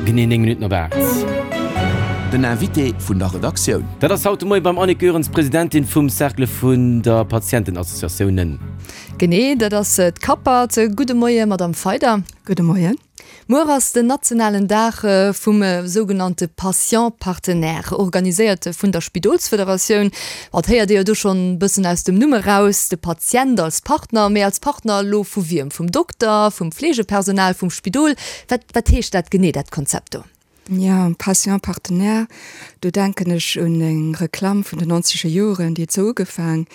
Genee 9 Minutten op 8. Den Invité vun der Redaktioun. Dat ass haut de Moie beim Annick Goerens, Presidentin vum Cercle vun der Patientenassociatiounen. Genee, dat ass d'Capat. Gudde Moie, Madamm Feider. Gudde Moien. Muer ass den nationalen Dag vum sougenannte Patient Partenaire, organiséiert vun der Spidolsfederatioun. Et héiert ee jo do schonn e bëssen aus dem Numm eraus, de Patient als Partner. Mee als Partner elo vu wiem? Vum Dokter, vum Fleegepersonal, vum Spidol? Wat, wat heescht dat genee, dat Konzept do? Jo, Patient Partenaire, do denken ech un eng Reklamm vun den nonzeger Joren, déi huet sou ugefaang,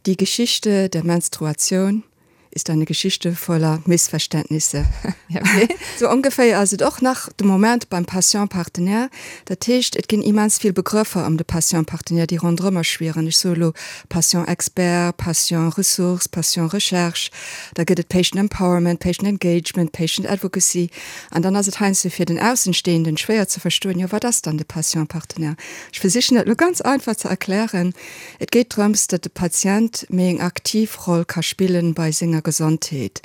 Die Geschichte der Menstruation ist eine Geschichte voller Missverständnisse. Okay. Sou ongeféier ass et och nach de Moment beim Patient Partenaire. Dat heescht, et ginn immens vill Begrëffer ëm de Patient Partenaire, déi ronderëmmer schwieren. Ech soe lo Patient Expert, Patient Ressource, Patient Recherche, da gëtt et Patient Empowerment, Patient Engagement, Patient Advocacy. An dann ass et heiansdo fir den Aussenstehenden schwéier ze verstoen, jo wat ass dann de Patient Partenaire? Ech versichen dat elo ganz einfach ze erklären. Et geet drëms, datt de Patient méi eng aktiv Roll ka spillen bei senger Gesondheet.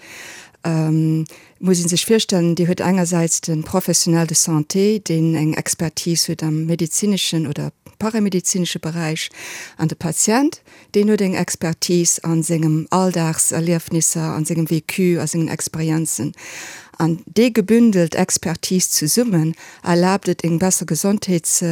Et muss ee sech virstellen, Dir huet engersäits de Professionnel de santé, deen eng Expertise huet am medezineschen oder paramedezinesche Beräich, an de Patient, deen huet eng Expertise a sengem Alldagserliefnisser, a sengem Vécu, a sengen Experienzen. An déi gebündelt Expertise zesummen erlaabt et eng besser Gesondheets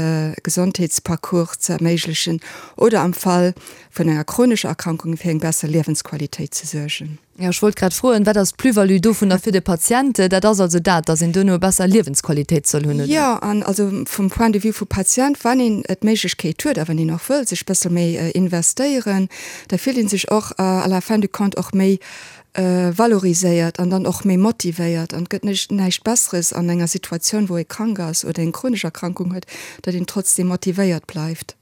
Gesondheetsparcours ze erméiglechen oder am Fall vun enger chronescher Erkrankung fir eng besser Liewensqualitéit ze suergen. Jo, ech wollt grad froen, wat ass d'Plus-value dovunner fir de Patient? Dat ass also dat, dass een duerno e besser Liewensqualitéit soll hunn, oder? Jo, an also vum Point de vue vu Patient, wann een d'Méiglechkeet huet a wann een och wëll sech bëssel méi investéieren, da fillt ee sech och à la fin du compte och méi valoriséiert an dann och méi motivéiert. An et gëtt näischt näischt Besseres an enger Situatioun, wou ee krank ass oder eng chronesch Erkrankung huet, datt een trotzdeem motivéiert bleift.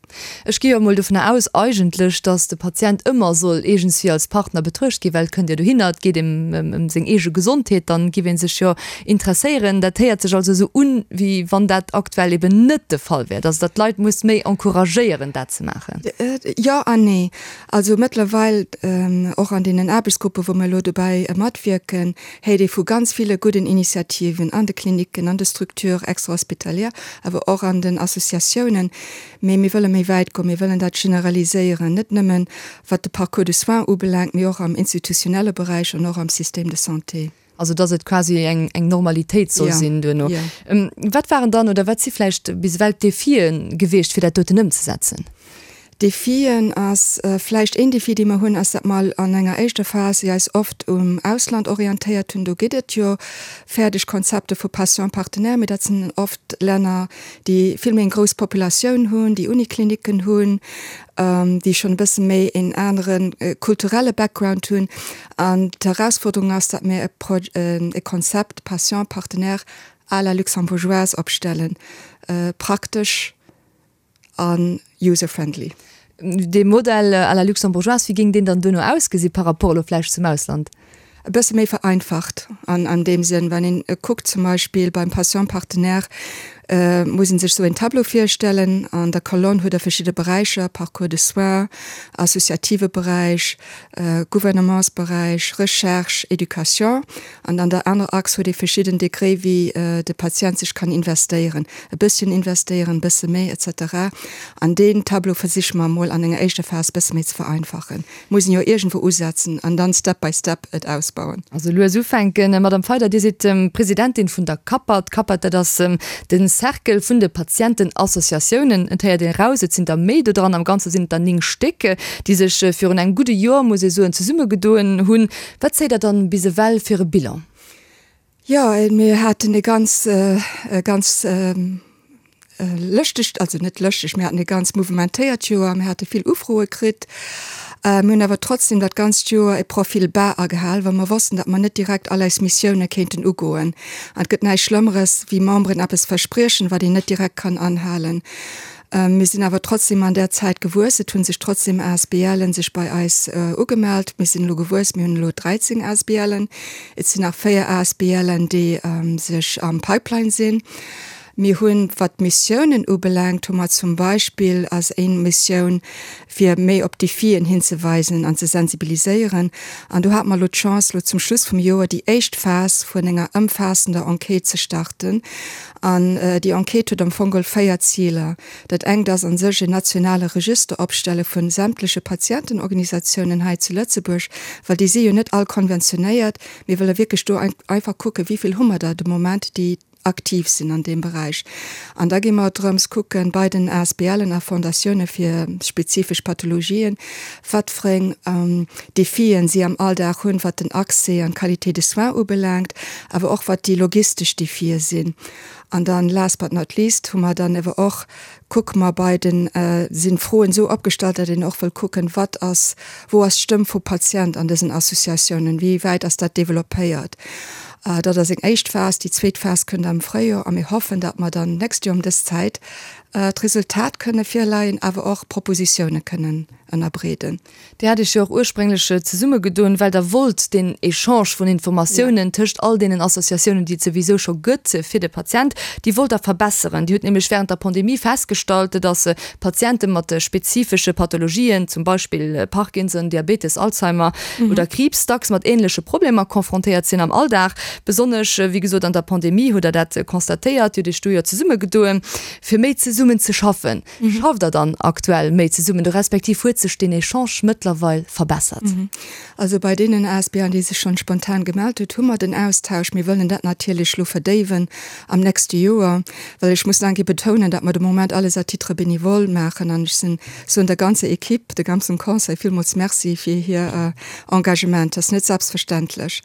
Ech gi jo emol dovunner aus eigentlech, datt de Patient ëmmer soll iergendswéi als Partner betruecht ginn, well et kënnt jo dohinner, et geet ëm ëm seng eege Gesondheet, dann giff ee sech jo interesséieren. Dat héiert sech also esou un, wéi wann dat aktuell eben net de Fall wär, datt Der d'Leit musst méi encouragéieren, dat ze maachen. Jo an nee. Also mëttlerweil, och an deenen Aarbechtsgruppen, wou mir elo dobäi matwierken, héiert ee vu ganz ville gudden Initiativen an de Klinicken, an de Structures extra-hospitalières, awer och an den Associatiounen. Mee mir wëlle méi wäit goen, mir wëllen dat generaliséieren, net nëmmen wat de Parcours de soins ubelaangt, mee och am institutionelle Beräich an och am Système de santé. Also dass et quasi eng eng Normalitéit soll sinn duerno. Wat waren dann oder wat si vläicht bis ewell d'Defie gewiescht, fir dat doten ëmzesetzen? Defien ass vläicht een Defi, dee mer hunn, ass, datt mer an enger éischter Phas eis oft um Ausland orientéiert hunn. Do gëtt et jo fäerdeg Konzepte vu Patient partenaire, mee dat sinn oft Länner, déi vill méi eng grouss Populatioun hunn, déi Uniklinicken hunn, déi schonn e bësse méi een anere kulturelle Background hunn. An d'Herausforderung ass, datt mir e Konzept Patient partenaire à la luxembourgeoise opstellen, praktesch a user-friendly. Dee Modell à la luxembourgeoise, wéi géing deen dann duerno ausgesi par rapport elo vläicht zum Ausland? E bësse méi vereinfacht an deem Sënn, wann een kuckt zum Beispill beim Patient partenaire, muss een sech sou een Tableau virstellen. An der Kolonn huet Der verschidde Beräicher, Parcours de soins, associative Beräich, Gouvernementsberäich, Recherche, Education. An an der anerer Achs huet ee verschidden Degré wéi de Patient sech kann investéieren, e bësschen investéieren, e bësse méi, et cetera. An deen Tableau versiche mer emol an enger éischter Phas e bësse méi ze vereinfachen. Muss een jo iergendwou usetzen an dann step by step et ausbauen. Also lues ufänken. Madame Feyder, Dir sidd Presidentin vun der CAPAT. D'CAPAT, dat ass de Cercle vun de Patientenassociatiounen. Et héiert een eraus, et sinn der méi do dran. Am Ganze sinn et der 9 Stéck, déi sech virun engem gudde Joer, muss ee soen, zesummegedoen hunn. Wat zéit Der dann bis ewell fir e Bilan? Jo, mir haten e ganz, e ganz lëschtegt, also net lëschteg, mir haten e ganz mouvementéiert Joer. Mir hate vill Ufroe kritt. Mir hunn awer trotzdem dat ganzt Joer e Profil bas agehal, well mer wossten, datt mer net direkt all eis Missioune kéinten ugoen. An et gëtt näischt Schlëmmeres, wéi Memberen eppes verspriechen, wat een net direkt kann anhalen. Mir sinn awer trotzdem an där Zäit gewuess. Et hu sech trotzdem ASBLen sech bei eis ugemellt. Mir sinn elo gewuess, mir hunn elo 13 ASBLen. Et sinn nach 4 ASBLen, déi sech am Pipeline sinn. Mir hunn, wat d'Missiounen ubelaangt, hu mer zum Beispill als eng Missioun, fir méi op d'Defien hinzeweisen an ze sensibiliséieren. An do hate mer elo d'Chance, elo zum Schluss vum Joer déi éischt Phas vun enger ëmfaassender Enquête ze starten. An déi Enquête huet am Fong geholl 4 Ziler. Dat engt ass a sech en nationale Register opstelle vu sämtleche Patientenorganisatiounen hei zu Lëtzebuerg, well déi si jo net all konventionéiert. Mir wëlle wierklech do einfach kucken, wéi vill hu mer der de Moment, déi aktiv sinn an deem Beräich. An da gi mer drëms kucken, bei den ASBLen a Fondatioune fir spezifesch Pathologien, wat fir eng Defien si am Alldag hunn, wat den Accès an d'Qualité de soins ubelaangt, awer och wat déi logistesch Defie sinn. An dann, last but not least, hu mer dann ewer och, kucke mer bei den, sinn d'Froen esou opgestallt, datt een och wëll kucken, wat ass, wou ass d'Stëmm vum Patient an dësen Associatiounen, wéi wäit ass dat développéiert. Dat ass eng éischt Phas. Déi zweet Phas kënnt am Fréijoer a mir hoffen, datt mer dann d'nächst Joer ëm dës Zäit d'Resultat kënne virleien, awer och Propositioune kënnen ënnerbreeden. Dir hat Iech jo och ursprénglech zesummegedoen, well Der wollt deen Echange vun Informatiounen tëscht all deenen Associatiounen, déi et souwisou scho gëtt fir de Patient, déi wollt Der verbesseren. Dir hutt nämlech während der Pandemie festgestallt, dass Patiente mat spezifesche Pathologien, zum Beispill Parkinson, Diabetes, Alzheimer oder Kriibs, dacks mat änleche Problemer confrontéiert sinn am Alldag. Besonnesch, wéi gesot, an der Pandemie hutt Der dat constatéiert. Dir hutt Iech do jo zesummegedoen, fir méi zesummen ze schaffen. Schafft Der dann aktuell méi zesummen, respektiv huet sech deen Echange mëttlerweil verbessert? Also bei deenen ASBLen, déi sech schonn spontan gemellt hutt, hu mer den Austausch. Mir wëllen dat natierlech elo verdéiwen am nächste Joer, well ech muss nach eng Kéier betounen, datt mer de Moment alles à titre bénévole maachen an ech sinn, soen der ganzer Equipe, de ganzem Conseil villmools Merci fir hir Engagement. Dat ass net selbstverständlech.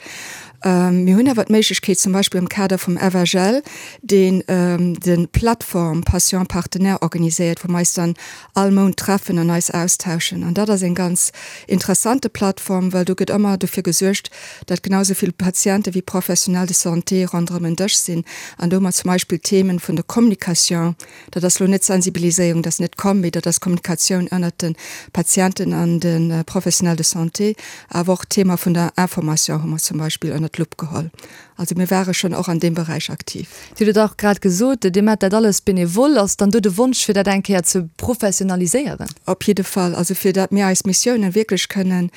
Mir hunn awer d'Méiglechkeet, zum Beispill am Kader vum FHL, deen de Plateforme Patient Partenaire organiséiert, wou mer eis dann all Mount treffen an eis austauschen. An dat ass eng ganz interessante Plattform, well do gëtt ëmmer dofir gesuergt, datt genau esou vill Patiente wéi Professionnels de santé ronderëm en Dësch sinn an do hu mer zum Beispill d'Themen vun der Communication, Dat ass elo net Sensibiliséierung, dat ass net Com, mee dat ass Kommunikatioun ënnert de Patienten an de Professionnels de santé. Awer och d'Thema vun der Information hu mer zum Beispill ënnert d'Lupp geholl. Also mir ware schonn och an deem Beräich aktiv. Dir hutt et och grad gesot, Dir maacht dat alles benevol. Ass dann do de Wonsch, fir dat eng Kéier ze professionaliséieren? Op jidde Fall. Also fir dat mir eis Missiounen wierklech kënnen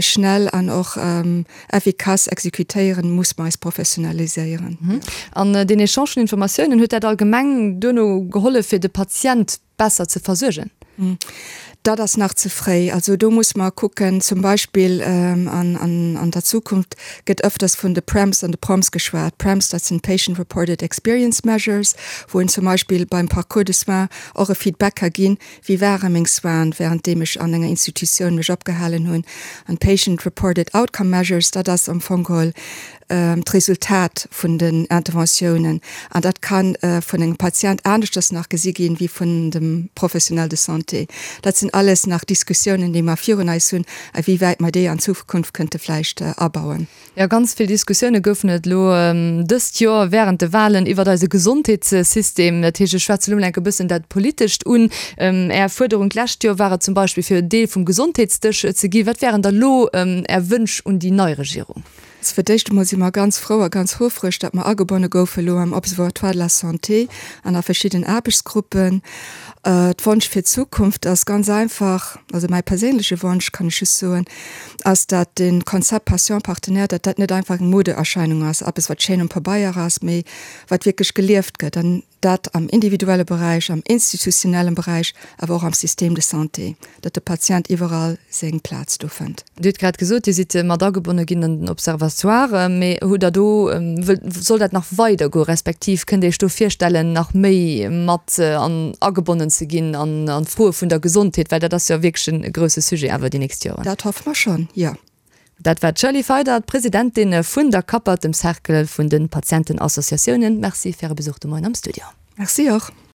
schnell an och effikass exekutéieren, muss mer eis professionaliséieren. An deen Echange vun Informatiounen, huet dat allgemeng duerno gehollef, fir de Patient besser ze versuergen? Dat ass nach ze fréi. Also do muss mer kucken, zum Beispill an der Zukunft gëtt ëfters vun de PREMs an de PROMs geschwat. PREMs, dat sinn Patient Reported Experience Measures, wou een zum Beispill beim Parcours de soins och e Feedback ka ginn, Wéi ware meng Soinen, wärenddeem ech an enger Institutioun mech opgehalen hunn? An Patient Reported Outcome Measures, dat ass am Fong geholl d'Resultat vun den Interventiounen. An dat ka vun engem Patient aneschters nach gesi ginn, wéi vun dem Professionnel de santé. Dat sinn alles nach Diskussiounen, déi mer virun eis hunn, a wéi wäit mer déi an Zukunft kënnte vläicht abauen. Jo, ganz vill Diskussioune goufen et elo dëst Joer wärend de Walen iwwert eise Gesondheetssystem. Dat heescht, ech schwätze elo mol enk e bëssen dat Politescht un. Är Fuerderung d'lescht Joer war et zum Beispill, fir Deel vum Gesondheetsdësch ze ginn. Wat wären da lo Är Wënsch un déi nei Regierung? Also fir d'éischt emol si mer ganz frou a ganz houfreg, datt mer agebonne goufe elo am Observatoire de la santé an a verschidden Aarbechtsgruppen. D'Wonsch fir d'Zukunft ass ganz einfach, also mäi perséinleche Wonsch, kann ech just soen, ass, dat de Konzept Patient partenaire, dat dat net einfach eng Modeerscheinung ass, eppes wat schéin um Pabeier ass, mee wat wierklech gelieft gëtt, an dat am individuelle Beräich, am institutionellen Beräich, awer och am Système de santé, datt de Patient iwwerall seng Plaz do fënnt. Dir hutt grad gesot, Dir sidd mat agebonne ginn an den Observatoire, mee hutt Der do, soll dat nach weidergoen, respektiv kënnt Dir Iech do virstellen, nach méi mat an agebonnen ze ginn an d'Froe vun der Gesondheet, well dat ass jo wierklech e grousse Sujet awer déi nächst Joren. Dat hoffe mer schonn, jo. Dat war d'Shirley Feider, d'Presidentin vun der CAPAT, dem Cercle vun de Patientenassociatiounen. Merci fir Äre Besuch de Moien am Studio. Merci och.